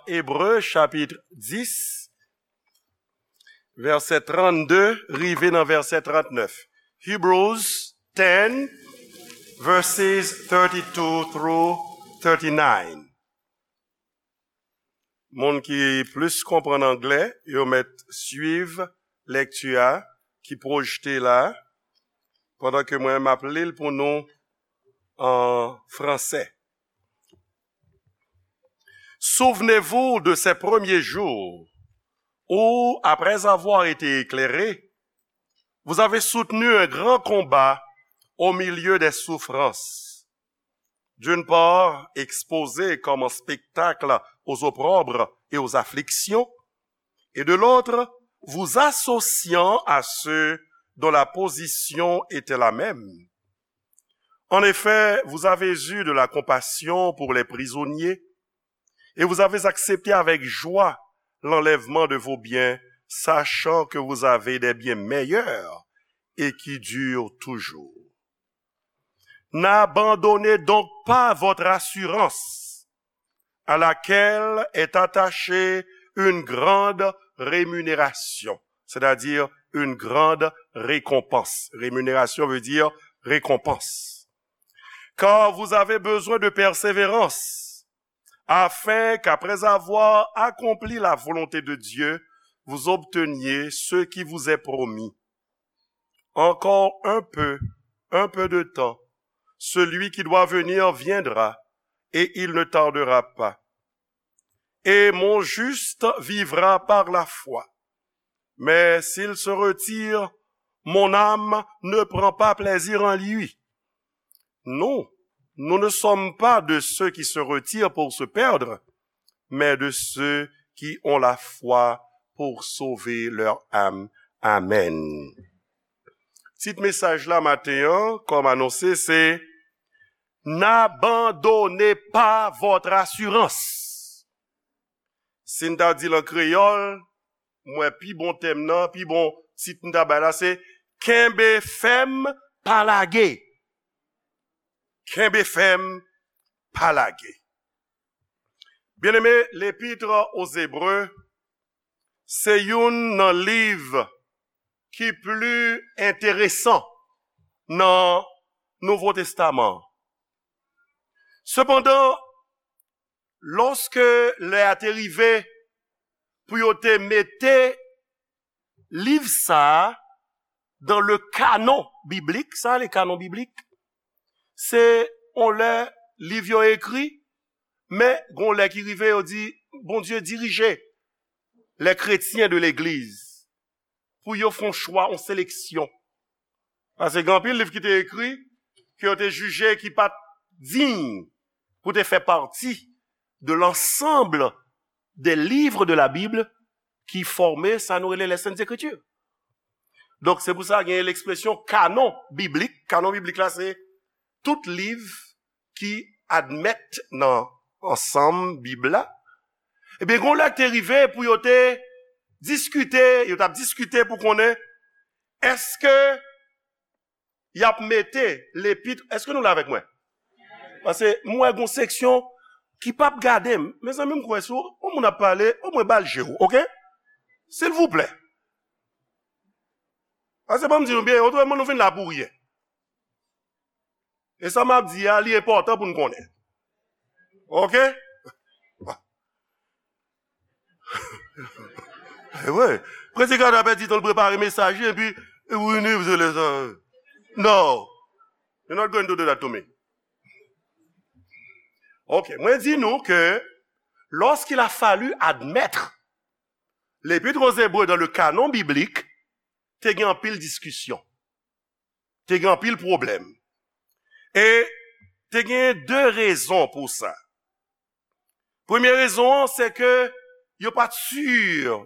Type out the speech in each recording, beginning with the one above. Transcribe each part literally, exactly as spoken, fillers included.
Ebre chapit dis, vèsè trannde rive nan vèsè trannèf. Hebrews ten, verses thirty-two through thirty-nine. Moun ki plis konprann anglè, yo mèt swiv lèkti a ki pwojte la, pandan ke mwen m ap li l pou nou an fransè. Souvenez-vous de ces premiers jours où, après avoir été éclairés, vous avez soutenu un grand combat au milieu des souffrances. D'une part, exposés comme un spectacle aux opprobres et aux afflictions, et de l'autre, vous associant à ceux dont la position était la même. En effet, vous avez eu de la compassion pour les prisonniers, et vous avez accepté avec joie l'enlèvement de vos biens, sachant que vous avez des biens meilleurs et qui durent toujours. N'abandonnez donc pas votre assurance, à laquelle est attachée une grande rémunération, c'est-à-dire une grande récompense. Rémunération veut dire récompense. Car vous avez besoin de persévérance, afin qu'après avoir accompli la volonté de Dieu, vous obteniez ce qui vous est promis. Encore un peu, un peu de temps, celui qui doit venir viendra, et il ne tardera pas. Et mon juste vivra par la foi. Mais s'il se retire, mon âme ne prend pas plaisir en lui. Nous, nous ne sommes pas de ceux qui se retirent pour se perdre, mais de ceux qui ont la foi pour sauver leur âme. Amen. Tit mesaj la maten an, kòm anonse, se N'abandonnez pas votre assurance. Si n ta di l an kreyòl, m wè pi bon tèm nan, pi bon tit n ta bay la, se Kenbe fèm, pa lage. Kenbe fèm, pa lage. Byeneme, L'Épître aux Hébreux se youn nan liv ki pli enteresan nan Nouvo Testaman an. Sepandan, lòske lè a te rive pou yo te mete liv sa a dans le canon biblique, sa le canon biblique, se yon lè liv yo ekri, men gon lè ki rive yo di, Bondye dirije les chrétiens de l'église pou yo fè yon chwa, yon seleksyon. Paske gen anpil liv ki te ekri, ke yo te jije ki pa t diy pou te fè pati de l'ensemble des livres de la Bible ki fòme sa nou rele les Saintes Écritures. Donk, se pou sa gen ekspresyon kanon biblik. Kanon biblik la, se tout liv ki admèt nan ansanm Bib la. Ebyen, gon lè k te rive pou yo te diskite, yo t ap diskite pou konnen èske y ap mete lepit, èske nou la avèk mwen? Paske m wè gon seksyon ki p ap gade m. Mezanmi, m kwè si yon moun ap pale, omwen ba l je w, oke? Silvouplè. Paske ban m di nou byen, otreman nou vin la pou ryen. E sa m ap di a, li enpòtan pou n konnen. Oke? E vre. Predikatè a pèdi tan l prepare mesaj li, epi, e, wi, ni, se lè sa. No. You're not going to do that to me. Ok, mwen di nou ke lorsqu'il a fallu admettre l'Épître aux Hébreux dans le canon biblique, te gen anpil diskisyon. Te gen anpil pwoblèm. E te gen de rezon pou sa. Premye rezon an, se ke yo pa t si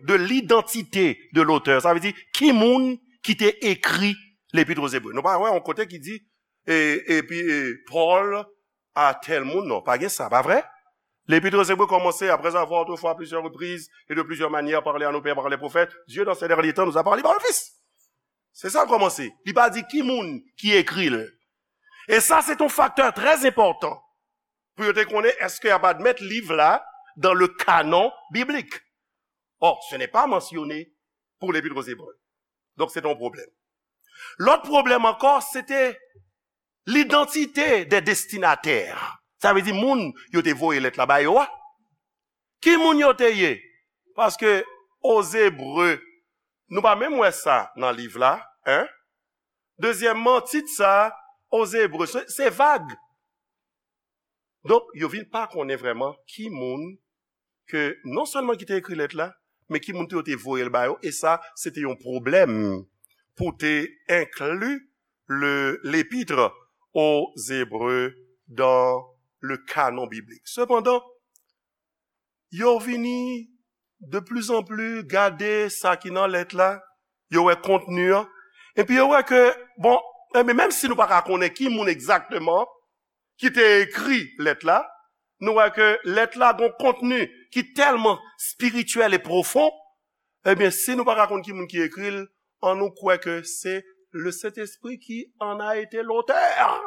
de lidantite de lotè. Sa vle di, ki moun ki te ekri Lepit Ozebre. Nou pa wè yon kote ki di, e, epi, e, Pòl a tèl moun, non, pa gen sa, pa vre? Lepit Ozebre kòmanse, après avoir autrefois à plusieurs reprises et de plusieurs manières parlé à nos pères par les prophètes, Dieu dans ces derniers temps nous a parlé par le Fils. Se sa l kòmanse. Li pa di ki moun ki ekri l. E sa, se yon faktè trè enpòtan pou yo te konnen èske y ap admèt liv la dans le canon biblique. Or, ce n'est pas mentionné pour l'Épître aux Hébreux. Donc, c'est un problème. L'autre problème encore, c'était l'identité des destinataires. Sa vle di moun yo te voye lèt la ba yo a. Ki moun yo te ye? Paske Ozebre, nou pa menm wè sa nan liv la, en? Dezyèmman, tit sa, Ozebre, se, se vag. Donk, yo vin pa konnen vrèman ki moun ke non sèlman ki te ekri lèt la, men ki moun tou yo te voye l ba yo, e sa, se te yon pwoblèm pou te enkli le, l'Épître aux Hébreux dans le canon biblique. Sepandan, yo vini de plus en plus gade sa ki nan lèt la, yo wè kontni an, epi yo wè ke, bon, enben, menm si nou pa ka konnen ki moun egzakteman ki te ekri lèt la, nou wè ke lèt la gon kontni ki tèlman espirityèl e pwofon, ebyen, si nou pa ka konn ki moun ki ekri l, annou kwè ke se le Saint-Esprit qui en a été l'auteur.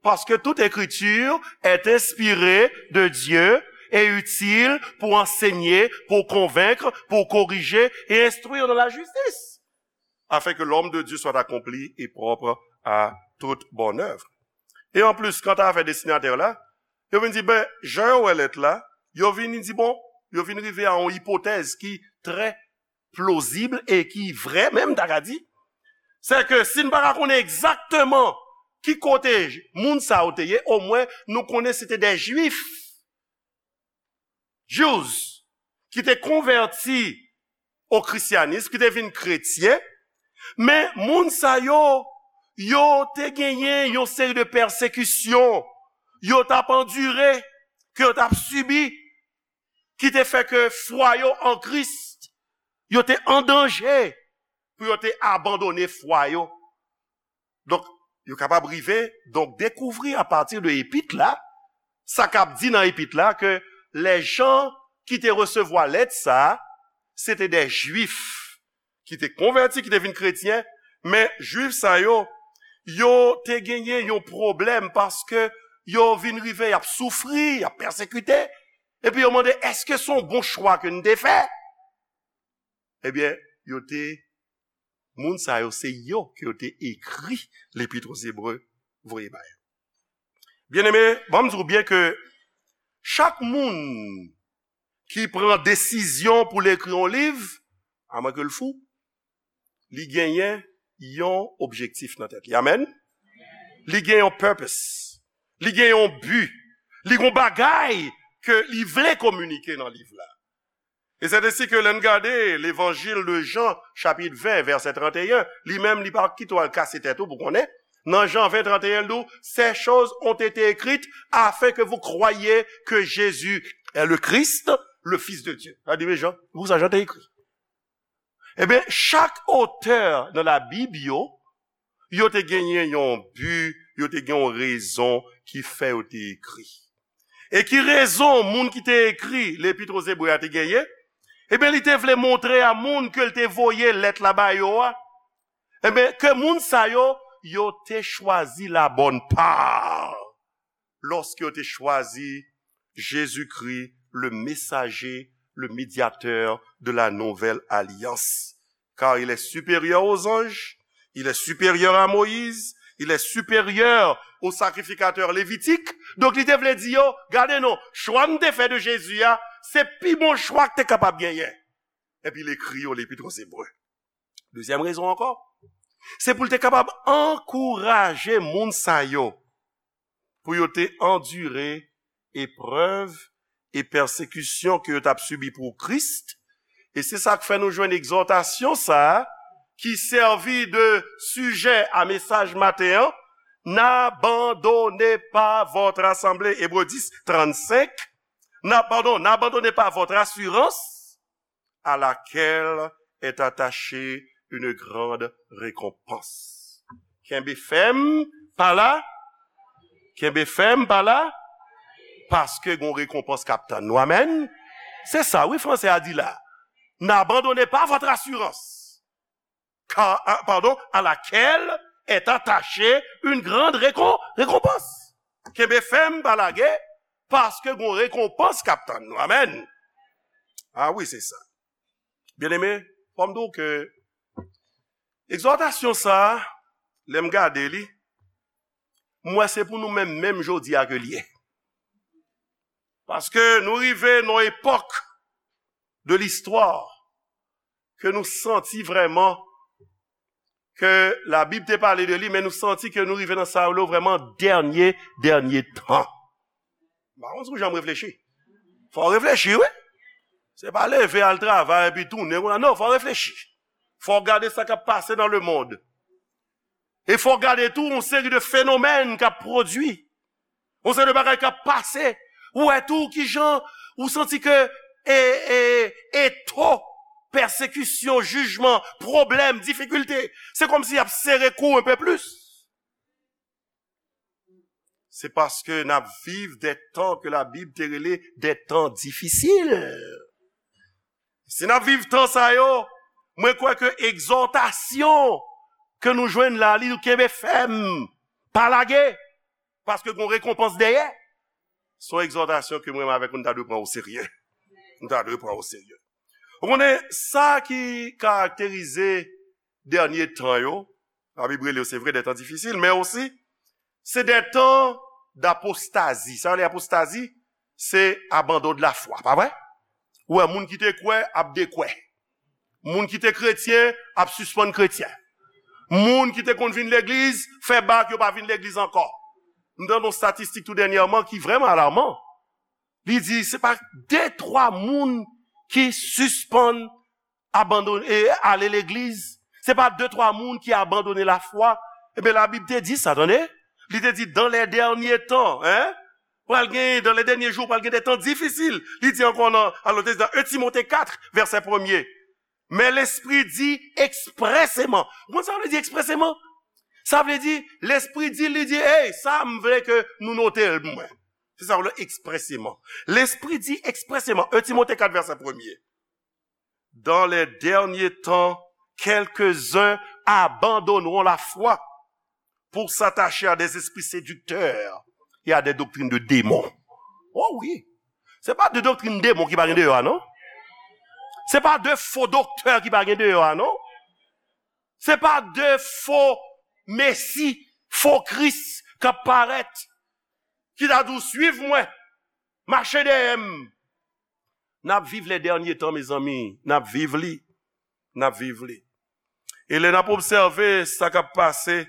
Parce que toute écriture est inspirée de Dieu et utile pour enseigner, pour convaincre, pour corriger et instruire dans la justice, afin que l'homme de Dieu soit accompli et propre à toute bonne œuvre. E anplis, kanta afè destinatè la, yo vin di, ben, jan yo wè lèt la, yo vin di, bon, yo vin rive a yon ipotèz ki trè plozib e ki vrè menm, ta ka di, se ke si n pa ka konnen egzakteman ki kote moun sa yo te ye, omwen nou konnen se te de Jwif, Jews, ki te konvèti o krisyanis, ki te vin kretyen, men moun sa yo, yo te genyen yon seri de pèsekisyon yo t ap andire, ke yo t ap sibi, ki te fè ke fwa yo an Kris, yo te an danje pou yo te abandone fwa yo. Donk, yo kapab rive, donk, dekouvri apati de epit la, sa k ap di nan epit la, ke lèjan ki te resevwa lèt sa, se te de Jwif ki te konvèti, ki te vin kretyen, men Jwif sa yo, yo te genyen yon pwoblèm paske yo vin rive, y ap soufri, y ap pèsekite, epi yo mande, èske se yon bon chwa ke n te fè? Ebyen, yo te, moun sa yo, se yo ke yo te ekri L'Épître aux Hébreux voye ba yo. Byeneme, ban m di w byen ke chak moun ki pran desizyon pou l ekri yon liv, amwenke l fou, li genyen yon objektif nan tèt li. Amèn? Li gen yon purpose. Li gen yon bi. Li gen yon bagay ke li vle kominike nan liv la. E se ensi ke lè n gade Levanjil de Jan, chapit ven, vèsè trannteyen, li menm, li pa kite w al kase tèt ou pou konnen. Nan Jan ven trannteyen, l di w, ces choses ont été écrites afin que vous croyiez que Jésus est le Christ, le Fils de Dieu. Sa di, men Jan, pou sa Jan te ekri. Ebyen, chak otè nan Labib yo, yo te genyen yon bi, yo te gen yon rezon ki fè yo te ekri. E ki rezon moun ki te ekri L'Épître aux Hébreux a te genyen? Ebyen, li te vle montre a moun ke l te voye lèt la ba yo a, ebyen, ke moun sa yo, yo te chwazi la bonne part lòske yo te chwazi Jezikri, le messager, le médiateur de la nouvelle alliance. Car il est supérieur aux anges, il est supérieur à Moïse, il est supérieur aux sacrificateurs lévitiques. Donk, li te vle di yo, gade non, chwa m te fè de Jezi a, se pi bon chwa k te kapab genyen. Epi l ekri yo L'Épître aux Hébreux. Dezyèm rezon ankò, se pou l te kapab ankouraje moun sa yo pou yo te andire eprèv e pèsekisyon ke yo t ap sibi pou Kris. E se sa k fè nou jwenn egzòtasyon sa a, ki sèvi de sijè a mesaj maten an, N'abandonnez pas votre assemblée, Ebre dis, trannsenk. Na, padon, N'abandonnez pas votre assurance, à laquelle est attachée une grande récompense. Kenbe fèm, pa la. Kenbe fèm, pa la. Paske gon rekonpans k ap tann nou. Amèn. Se sa, wi, fransè a di la. N'abandonnez pas votre assurance. Car, ah, pardon, à laquelle est attachée une grande récom-, récompense. Kenbe fèm, pa lage, paske gon rekonpans k ap tann nou. Amèn. Ah wi, se sa. Byeneme, fò m di w ke egzòtasyon sa a, lè m gade li, m wè se pou nou menm, menm jodi a ke l ye. Paske nou rive nan yon epòk de listwa ke nou santi vrèman ke Labib te pale de li, men nou santi ke nou rive nan sa yo vrèman dènye, dènye tan. M pa konn si w janm reflechi. Fò w reflechi, wi. Se pa leve al travay epi tounen konsa. Non, fò w reflechi. Fò w gade sa k ap pase nan lemonn. E fò w gade tou yon seri de fenomèn k ap pwodui. Yon seri de bagay k ap pase. Ou wè tou kijan ou santi ke e, e, eto, pèsekisyon, jijman, pwoblèm, difikilte, se kòmsi y ap sere kou w enpe plis. Se paske n ap viv de tan ke Labib te rele de tan difisil. Si n ap viv tan sa yo, mwen kwè ke egzòtasyon ke nou jwenn la, li di w kenbe fèm, pa lage, paske gon rekonpans dèyè. Se yon egzòtasyon ke mwen menm avèk ou, nou ta dwe pran o serye. Nou ta dwe pran o serye. Ou konnen, sa ki karakterize dènye tan yo, Labib rele yo, se vre, de tan difisil, men osi, se de tan dapostazi. Sa yo rele apostazi? Se abandon de la fwa, pa vre? Ou wè, moun ki te kwè ap dekwè. Moun ki te kretyen ap sispann kretyen. Moun ki te konn vin legliz, fè bak, yo pa vin legliz ankò. M tande yon statistik tou dènyèman ki vrèman alaman. Li di se pa de, twa moun ki sispann abandone, e, ale legliz. Se pa de, twa moun ki abandone lafwa. Ebyen, Labib te di sa, tande. Li te di, dans les derniers temps, hein, pral gen, dans les derniers jours, pral gen de tan difisil. Li di ankò nan, alò, te di nan en Timote kat, vèsè premye. Men Lespri di ekspreseman. Ou konn sa vle di ekspreseman? Sa vle di, Lespri di, li di, hey, sa m vle ke nou note l pou mwen. Se sa w le ekspreseman. Lespri di ekspreseman, en Timote kat, vèsè premye. Dans les derniers temps, quelques-uns abandonneront la foi pour s'attacher à des esprits séducteurs et à des doctrines de démons. Oh wi. Se pa de doktrin demon ki pa gen deyò a, non. Se pa de fo doktè ki pa gen deyò a, non. Se pa de fo mesi, fo Kris k ap parèt, ki ta di w, suiv mwen, mache dèyè m. N ap viv les derniers temps, mezanmi. N ap viv li. N ap viv li. E lè n ap obsève sa k ap pase,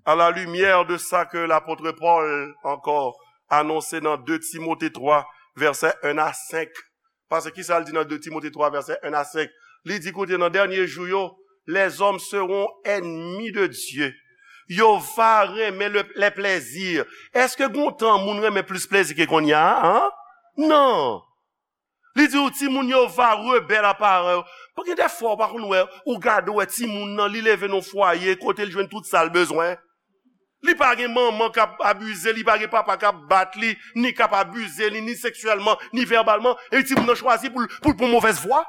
à la lumière de sa ke lapot Pòl ankò anonse nan de Timote twa, vèsè en a senk. Paske kisa l di nan de Timote twa, vèsè en a senk? Li di, koute, nan dènye jou yo, les hommes seront ennemis de Dieu. Yo va renmen le, les plaisirs. Èske gon tan moun renmen plis plezi ke kounye a, an? Non. Li di w, timoun yo va rebèl a paran yo. Gen de fwa, ou pa konn wè, ou gade, ou wè timoun nan, li leve nan fwaye, kote l jwenn tout sa l bezwen. Li pa gen manman k ap abize, li pa gen papa k ap bat li, ni k ap abize li, ni seksyèlman, ni vèbalman, e timoun nan chwazi pou l, pou l pran movèz vwa.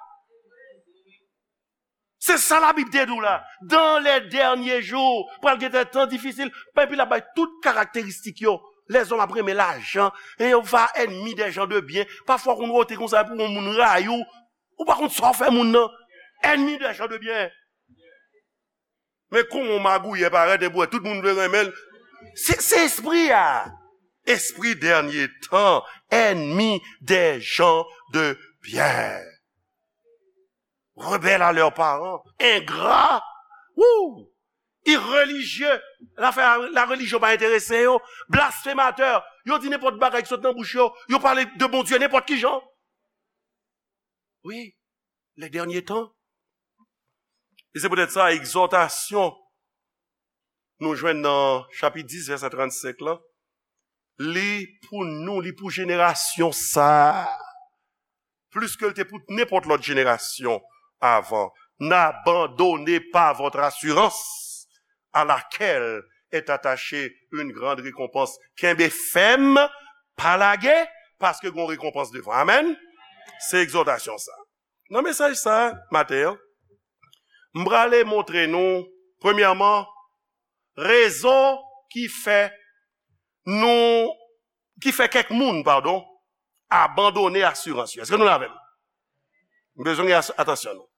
Se sa Labib te di w la. Dans les derniers jours, pral gen tan difisil. Epi l ap bay tout karakteristik yo. Lèzòm ap renmen lajan. E yo va ennemis des gens de bien. Pafwa, ou konn wote konsa pou yon moun rayi w. Ou pa konn sa w fè moun nan. Ennemis des gens de bien. Men kòman yon magouyè parèt epi w wè tout moun vle renmen l. Se, se espri a. Espri dènye tan, ennemis des gens de bien. Rebelles à leurs parents, ingrats, wouh, irreligieux, lafè la relijyon pa enterese yo, blasfematè, yo di nenpòt bagay ki sot nan bouch yo, yo pale de Bondye nenpòt ki jan. Wi, les derniers temps. E se poutèt sa, egzòtasyon nou jwenn nan chapit dis, vèsè trannsenk lan, li pou nou, li pou jenerasyon sa a. Plis ke l te pou nenpòt lòt jenerasyon avan. N'abandonnez pas votre assurance, à laquelle est attachée une grande récompense. Kenbe fèm, pa lage, paske gon rekonpans devan. Amèn. Se egzòtasyon sa. Nan mesaj sa maten an, m prale montre nou, premyèman, rezon ki fè nou ki fè kèk moun, padon, abandone asirans yo. Èske nou la avè m? M bezwen gen as- atansyon nou.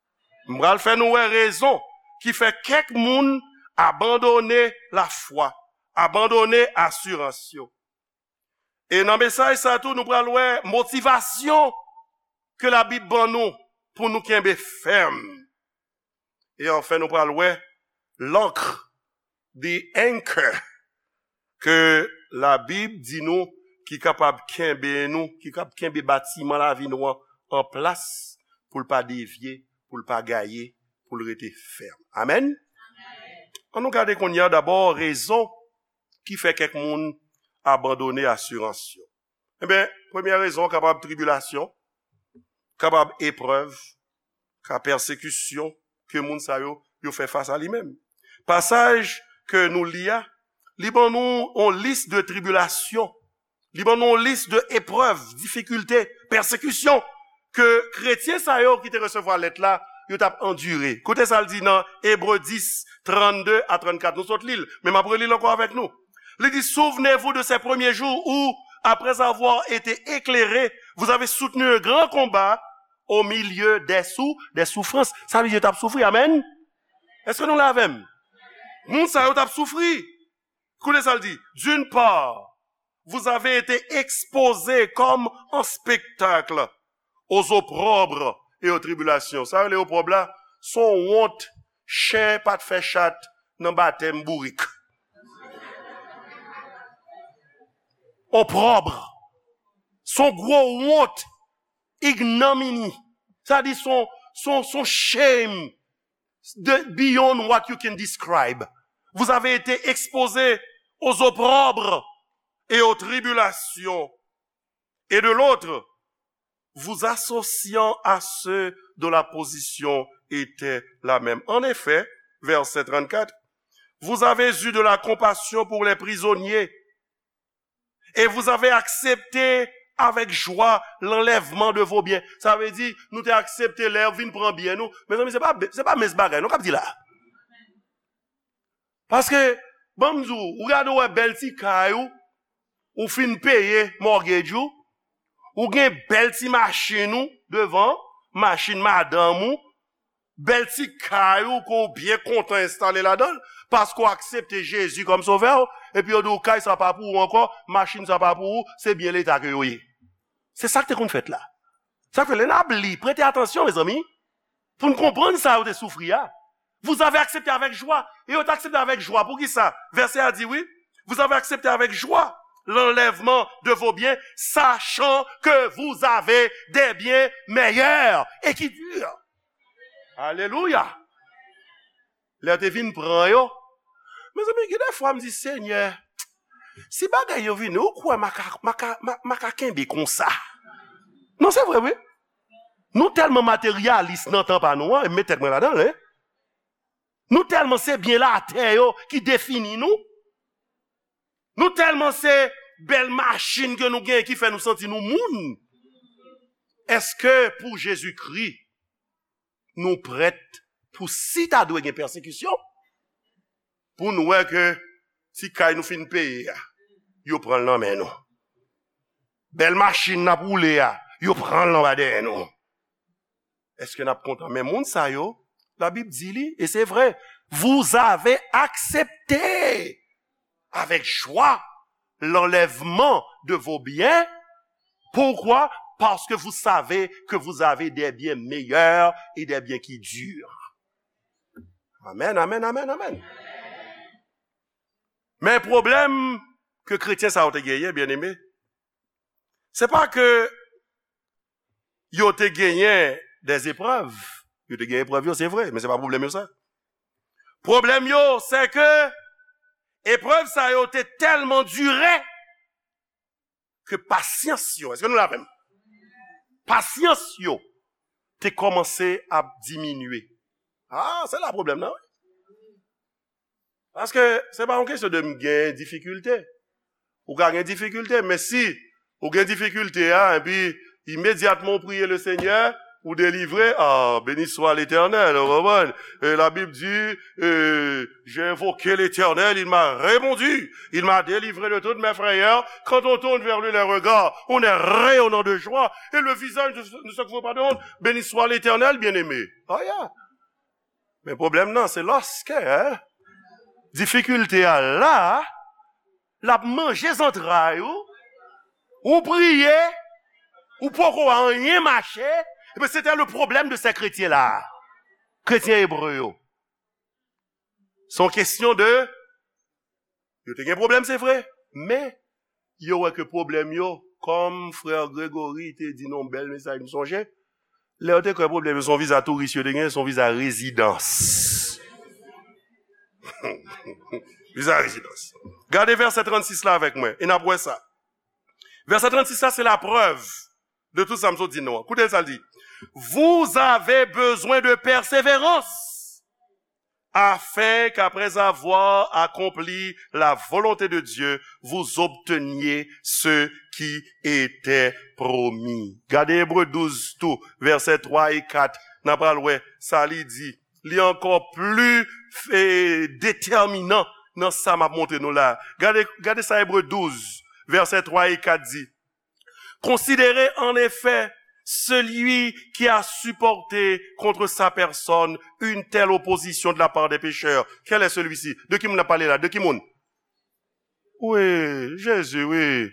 M pral fè nou wè rezon ki fè kèk moun abandone lafwa, abandone asirans yo. E nan mesaj sa tou, nou pral wè motivasyon ke Labib ban nou pou nou kenbe fèm. E anfen, nou pral wè lankr, the anchor, ke Labib di nou ki kapab kenbe nou, ki kab kenbe batiman lavi nou an an plas pou l pa devye, pou l pa gaye, pou l rete fèm. Amèn? Ann nou gade kounye a dabò rezon ki fè kèk moun abandone asirans yo. Ebyen, premyè rezon kapab tribilasyon, kapab eprèv, ka pèsekisyon ke moun sa yo, yo fè fas a li menm. Pasaj ke nou li a, li ban nou yon lis de tribilasyon, li ban nou yon lis de eprèv, difikilte, pèsekisyon ke kretyen sa yo ki te resevwa lèt la, yo t ap andire. Koute sa l di nan Ebre dis, trannde a trannkat. Nou sot li l, men m ap reli l ankò avèk nou. Li di, souvenez-vous de ces premiers jours où, après avoir été éclairés, vous avez soutenu un grand combat au milieu des sou, des souffrances. Sa vle di yo t ap soufri, amèn? Èske nou la avè m? Moun sa yo t ap soufri. Koute sa l di. D'une part, vous avez été exposés comme en spectacle aux opprobres et aux tribulations. Sa yo rele opwòb la, se yon wont chen pa t fè chat nan batèm bourik. Opwòb. Se yon gwo wont, ignomini. Sa di se yon, se yon, se yon shame de, beyond what you can describe. Vous avez été exposés aux opprobres et aux tribulations, et de l'autre, vous associant à ceux dont la position était la même. En effet, verset trannkat, vous avez eu de la compassion pour les prisonniers, et vous avez accepté avec joie l'enlèvement de vos biens. Sa vle di, nou te aksepte lè yo vin pran byen nou. Mezanmi, se pa, se pa mens bagay, nou k ap di la. Paske, ban m di w, ou gade w wè bèl ti kay ou, ou fin peye mortgage ou, ou gen bèl ti machin ou devan, machin madanm ou, bèl ti kay ou ke w byen kontan enstale ladan l, paske w aksepte Jezi kòm sovè w, epi yo di w kay sa pa pou ou ankò, machin sa pa pou ou, se byen Leta ke yo ye. Se sa k te konn fèt la. Sa k fè lè n ap li, prete atansyon, mezanmi, pou n konprann sa yo te soufri a. Vous avez accepté avec joie. E yo te aksepte avèk jwa. Poukisa? Vèsè a di, wi, vous avez accepté avec joie l'enlèvement de vos biens, sachant que vous avez des biens meilleurs et qui durent. Alelouya! Lè yo te vin pran yo, mezanmi, gen de fwa m di, Senyè, si bagay yo vini, ou kwè m a ka, m a ka, m a, m a ka kenbe konsa? Non, se vre, wi. Nou tèlman materyalis nan tan pa nou an, e m met tèt mwen ladan l, wi. Nou tèlman se byen latè yo ki defini nou. Nou tèlman se bèl machin ke nou gen ki fè nou santi nou moun. Èske pou Jezikri, nou prèt pou si ta dwe gen pèsekisyon, pou nou wè ke ti kay nou fin peye a, yo pran l nan men nou? Bèl machin n ap woule a, yo pran l anba dèyè nou. Èske n ap kontan? Men moun sa yo, Labib di li, e se vre, vous avez accepté avec joie l'enlèvement de vos biens. Pourquoi? Parce que vous savez que vous avez des biens meilleurs et des biens qui durent. Amèn, amèn, amèn, amèn. Men pwoblèm ke kretyen sa yo te genyen, byeneme, se pa ke yo te genyen dèzeprèv. Yo te gen eprèv yo, se vre, men se pa pwoblèm yo sa. Pwoblèm yo, se ke eprèv sa yo te tèlman dire ke pasyans yo, èske nou la avè m? Pasyans yo te kòmanse ap diminye. Ah, se la pwoblèm nan, wi. Paske se pa yon kesyon de m gen difikilte. Ou ka gen difikilte, men si ou gen difikilte a, epi imedyatman ou priye le Senyè, ou délivré, ah, béni soit l'Éternel, ou konprann? E Labib di, e, j'ai invoqué l'Éternel, il m'a répondu, il m'a délivré de toutes mes frayeurs. Quand on tourne vers lui les regards, on est rayonnant de joie, et le visage ne, ne se couvre pas de honte. Béni soit l'Éternel, bien-aimé. Oh yeah. Men pwoblèm nan, se lòskè, hein, difikilte a la, l ap manje zantray ou, ou priye, ou poko wè anyen mache, epi se te le problème de ces chrétiens là. Kretyen ebre yo. Se yon kesyon de, yo te gen pwoblèm, se vre, men yo wè ke pwoblèm yo, kòm frè Gregory te di nan yon bèl mesaj, m sonje, lè yo te kwè pwoblèm yo se yon viza touris yo te gen, se yon viza rezidans. Viza rezidans. Gade vèsè trannsis la avèk mwen, e n ap wè sa. Vèsè trannsis la, se laprèv de tout sa m sot di nou an. Koute sa l di. Vous avez besoin de persévérance, afin qu'après avoir accompli la volonté de Dieu, vous obteniez ce qui était promis. Gade Ebre douz tou, vèsè twa e kat. N a pral wè sa li di. Li ankò pli, e, detèminan nan sa m ap montre nou la. Gade, gade sa Ebre douz, vèsè twa e kat di. Considérez en effet celui qui a supporté contre sa personne une telle opposition de la part des pécheurs. Quel est celui-ci? De ki moun n ap pale la? De ki moun? Wi, Jezi, wi.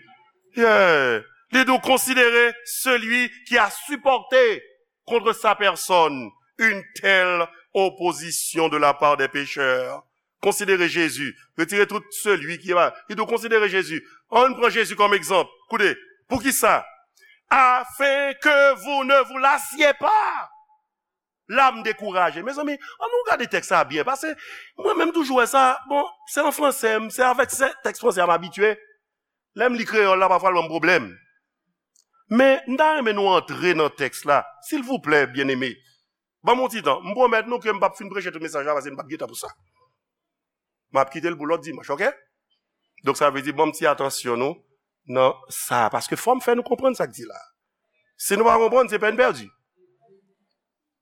Yeah. Li di w, considérez celui qui a supporté contre sa personne une telle opposition de la part des pécheurs. Considérez Jésus. Retirez tout celui qui est mal. Li di w, considérez Jésus. Ann pran Jezi kòm egzanp. Koute, poukisa? Afin que vous ne vous lassiez pas. La m dekouraje. Mezanmi, ann nou gade tèks sa byen. Paske mwen menm toujou wè sa, bon, se an fransè, m, se avèk se tèks fransè a m abitye. Lè m li kreyòl la, pafwa l ban m pwoblèm. Men, m ta renmen nou antre nan tèks la. Silvouplè, byeneme. Ban m yon ti tan. M pwomèt nou ke m p ap fin preche tout mesaj la, paske m p ap gen tan pou sa. M ap kite l pou lòt dimanch, oke? Donk, sa vle di, ban m ti atansyon nou nan sa. Paske fò m fè nou konprann sa k di la. Si nou pa konprann, se pèn pèdi.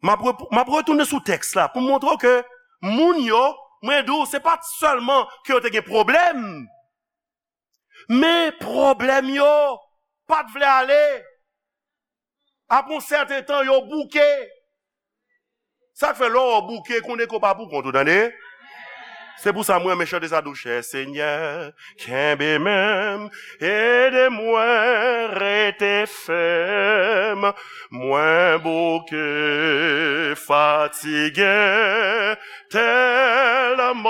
M ap rep-, m ap retounen sou tèks la pou m montre w ke moun yo, mwen di w, se pa t sèlman ke yo te gen pwoblèm, men pwoblèm yo pa t vle ale. Apre yon sèten tan, yo bouke. Sa k fè lè w bouke, konnen ke w pa pou kont ou, tande? Se pou sa mwen renmen chante sa dou, chè Senyè, kenbe men m, ede mwen rete fèm. Mwen bouke, fatige tèlman,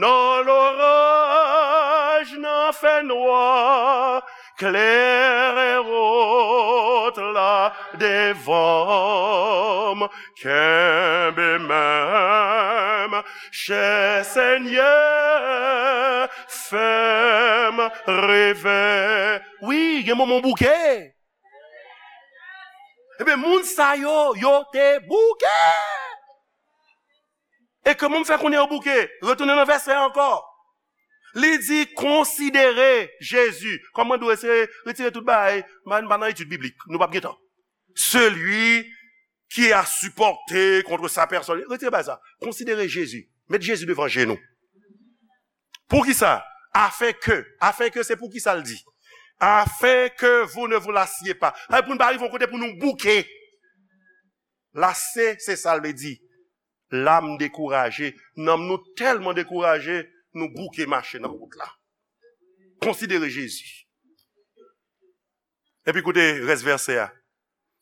nan loraj, nan fènwa, klere wout la devan m, kenbe men m, chè Senyè, fè m reve. Wi, gen moman w bouke. Ebyen, moun sa yo, yo te bouke. E kòman m fè konnen yo bouke? Retounen nan vèsè a ankò. Li di, konsidere Jezi. Kòm mwen di w, eseye retire tout bagay. M pa, m pa nan etid biblik. Nou p ap gen tan. Celui qui a supporté contre sa personne. Retire bagay sa. Konsidere Jezi. Met Jezi devan je nou. Poukisa? Afin que. Afin que, se poukisa l di. Afin que vous ne vous lassiez pas. Sa vle pou n pa rive yon kote pou nou bouke. Lase, se sa l vle di. Lam dekouraje. Nanm nou tèlman dekouraje, nou bouke mache nan wout la. Konsidere Jezi. Epi koute rès vèsè a.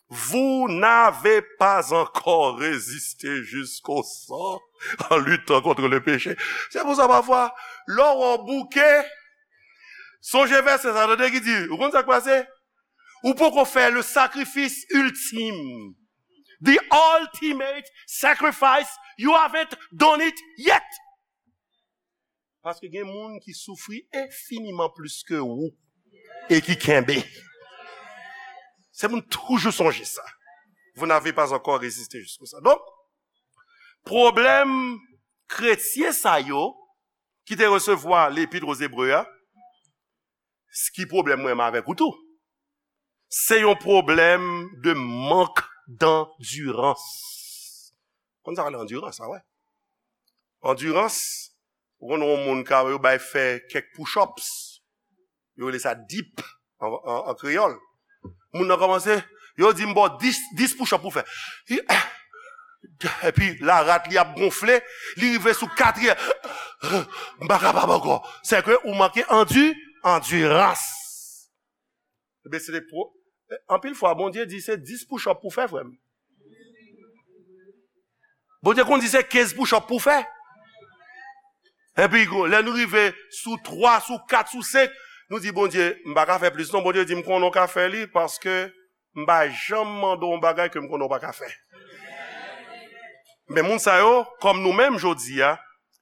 Vous n'avez pas encore résisté jusqu'au sang en luttant contre le péché. Se pou sa, pafwa, lè w bouke, sonje vèsè sa, tande ki di, ou konn sa k pase? Ou poko fè le sacrifice ultime. The ultimate sacrifice, you haven't done it yet. Paske gen moun ki soufri enfiniman plis ke ou e ki kenbe. Se pou n toujou sonje sa. Vous n'avez pas encore résisté jusqu'au sang. Donk, pwoblèm kretyen sa yo ki te resevwa lepit o Zebre a, s-, ki pwoblèm mwen menm avèk ou tou? Se yon pwoblèm de mank dandirans. Konn sa k rele andirans, a wè. Andirans, ou konn yon moun ka yo bay fè kèk push-ups. Yo rele sa dip an, an, an kreyòl. Moun nan kòmanse, yo di m ba w dis, dis push-up pou fè. Epi larat li ap gonfle, li rive sou katriyèm. M pa kapab ankò. Se ke ou manke andi, andirans. Ebyen, se te pwo-, anpil fwa, Bondye di se dis push-up pou fè, frè m. Bondye konn di se kenz push-up pou fè. Epi, lè nou rive sou twa, sou kat, sou senk, nou di, "Bondye, m pa ka fè plis non." Bondye di, "M konnen w ka fè li, paske m pa janm mande w yon bagay ke m konnen w pa ka fè." Men moun sa yo, kòm nou menm jodi a,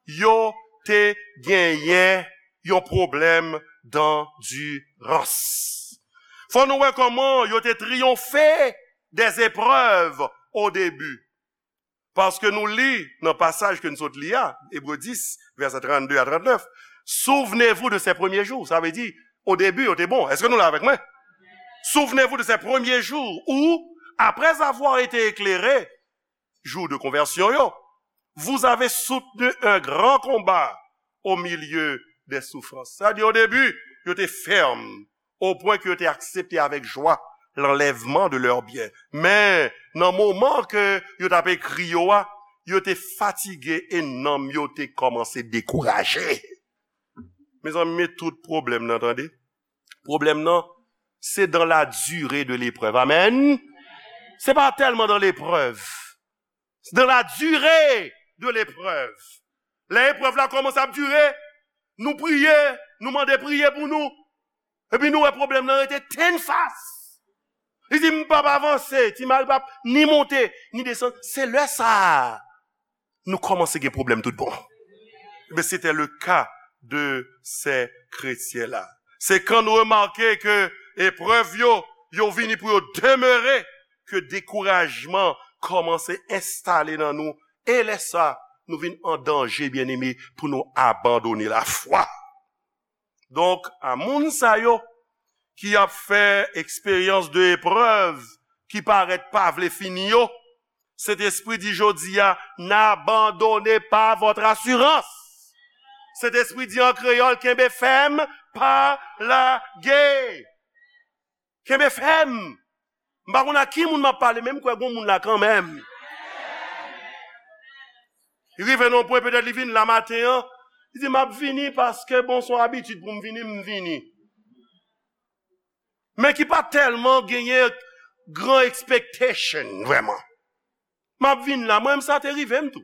yo te genyen yon pwoblèm dandirans. Fò nou wè kòman yo te triyonfe des épreuves au début. Paske nou li nan pasaj ke n sot li a, Ebre dis, vèsè trannde a trannèf, "Souvenez-vous de ces premiers jours." Sa vle di, o debi, yo te bon. Èske nou la avèk mwen? "Souvenez-vous de ces premiers jours où, après avoir été éclairés, jour de conversion yo, vous avez soutenu un grand combat au milieu des souffrances." Sa di, o debi, yo te fèm, o pwen ke yo te aksepte avèk jwa l'enlèvement de leurs biens. Men, nan moman ke yo t ap ekri yo a, yo te fatige e nanm yo te kòmanse dekouraje. Mezanmi, men tout pwoblèm nan, tande. Pwoblèm nan, c'est dans la durée de l'épreuve. Amen. Se pa tèlman dans l'épreuve. C'est dans la durée de l'épreuve. Lè eprèv la kòmanse ap dire, nou priye, nou mande priye pou nou. Epi nou wè pwoblèm nan rete tennfas. Li di, "M p ap avanse, ti mari p ap ni monte, ni desann." Se lè sa a, nou kòmanse gen pwoblèm tout bon. Ebyen, c'était le cas de ces chrétiens-là. Se kan nou remake ke eprèv yo, yo vini pou yo demere, ke dekourajman kòmanse enstale nan nou, e lè sa, nou vin an danje, byeneme, pou nou abandone lafwa. Donk, a moun sa yo ki ap fè eksperyans de eprèv ki parèt pa vle fini yo, Sentespri di jodi a, "N'abandonnez pas votre assurance." Sentespri di an kreyòl, "Kenbe fèm, pa lage." Kenbe fèm. M pa konn a ki moun m ap pale, men m kwè gon moun la kanmenm. Li rive nan yon pwen, petèt li vin la maten an, li di, "M ap vini paske, bon, se yon abitid pou m vini, m vini." Men ki pa tèlman genyen gran expectation, vrèman. "M ap vin la, mwen menm sa te rive m tou."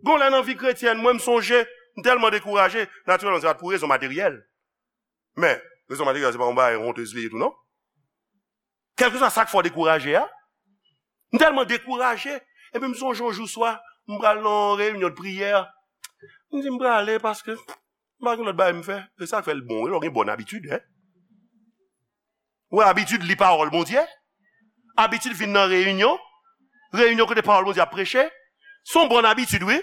Gon lè nan vi kretyèn, mwen m sonje, m tèlman dekouraje, natirèlman, se pa t pou rezon materyèl. Men, rezon materyèl, se pa yon bagay wontez li ye tou, non? Kèlkeswa sa k fè w dekouraje a, m tèlman dekouraje, epi m sonje yon jou swa, m pral nan yon reyinyon de priyè. M di, "M prale paske m pa gen lòt bagay m fè." E sa k fè l bon, wi, lè w gen bòn abitid, en. Ou wè abitid li pawòl Bondye? Abitid vin nan reyinyon? Reyinyon kote pawòl Bondye ap preche? Se yon bòn abitid, wi.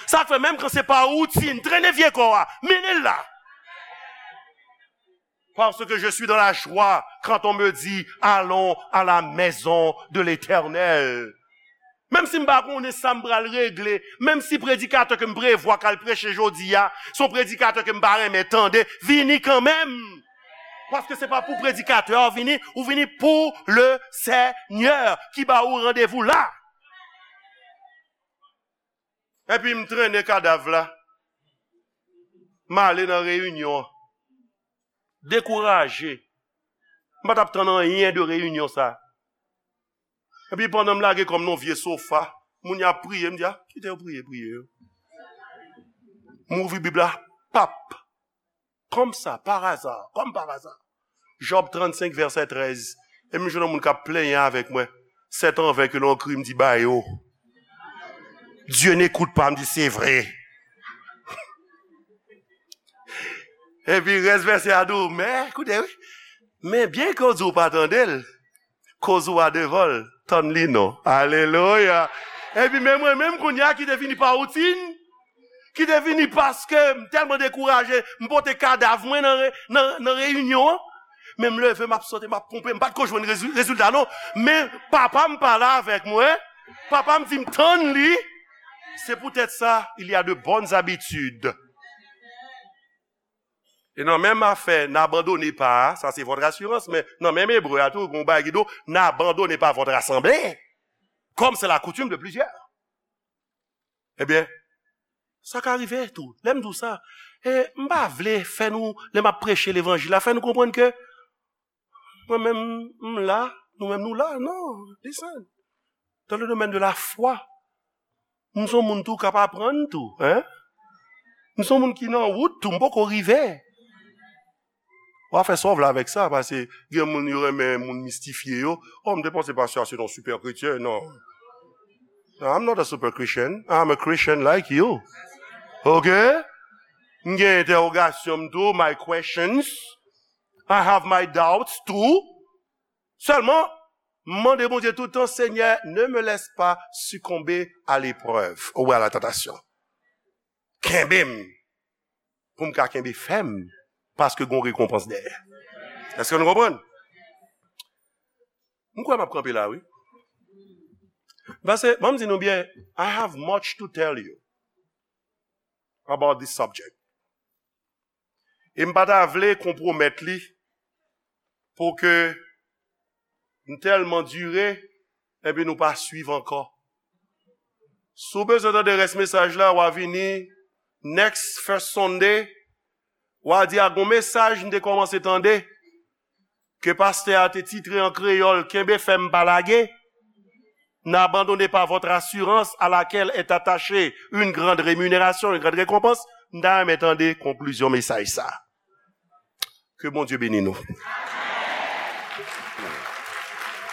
Sa k fè menm kan se pa woutin, trennen vye kò a, mennen l la. Parce que je suis dans la joie quand on me dit, "Allons à la maison de l'Éternel." Menm si m pa konnen sa m pral regle, menm si predikatè ke m prevwa k al preche jodi a, se yon predikatè ke m pa renmen tande, vini kanmenm. Paske se pa pou predikatè a vini, ou vini pou le Senyè ki ba ou randevou la. Epi m trennen kadav la. M ale nan reyinyon an. Dekouraje. M pa t ap tann anyen de reyinyon sa. Epi pandan m lage kò m nan vye sofa, moun y ap priye, m di, "A, kite yo priye, priye yo." M ouvri Bib la, pap. Comme ça, par hasard, comme par hasard. Job trannsenk, vèsè trèz. E m jwenn yon moun k ap plenyen avèk mwen. C'est en vain que l'on crie, m di, "Ba yo." "Dieu n'écoute pas," m di, "Se vre." Epi rès vèsè a di w, men, koute, wi. Men byen ke w di w pa tande l, koz ou a devan l, tann li non. Alelouya. Epi men mwen menm kounye a ki te vini pa woutin, ki te vini paske m tèlman dekouraje, m pote kadav mwen nan re-, nan, nan reyinyon an. Men m leve, m ap sote, m ap ponpe, m pa t ko jwenn rezi- rezilta non. Men papa m pale avèk mwen, papa m di m tann li. C'est peut-être ça, il y a de bonnes habitudes. E nan menm afè, n'abandonnez pas, sa se votre assurance, men nan menm Ebre a tou, gon bagay ki di w, n'abandonnez pas votre assemblée, comme c'est la coutume de plusieurs. Ebyen, sa ka rive tou. Lè m di w sa, e, m pa vle fè nou, lè m ap preche levanjil la, fè nou konprann ke mwen menm, m la, nou menm nou la. Non, listen. Dans le domaine de la foi, m se yon moun tou k ap aprann tou, hein? M se yon moun ki nan wout tou, m poko rive. W a fè sa w vle avèk sa, paske gen moun yo renmen moun mistifye yo. Oh, m te panse pastè a se yon super kretyen, non. No, I'm not a super Christian. I'm a Christian like you. Ok? M gen entèwogasyon m tou, my questions. I have my doubts too. Sèlman, m mande Bondye tout tan, Seigneur, ne me laisse pas succomber à l'épreuve ou à la tentation. Kenbe m, pou m ka kenbe fèm, paske gon rekonpans dèyè. Èske nou konprann? M kwè m ap kanpe la, wi. Paske, ban m di nou byen, I have much to tell you about this subject. E m pa ta vle konpwomèt li pou ke m tèlman dire, epi nou pa swiv ankò. Si w bezwen tande rès mesaj la, w a vini next first Sunday, w a di a gon mesaj m te kòmanse tande, ke pastè a te titre an kreyòl, Kenbe fèm pa lage. N'abandonnez pas votre assurance à laquelle est attachée une grande rémunération, une grande récompense. M ta renmen tande konklizyon mesaj sa. Ke Bondye beni nou.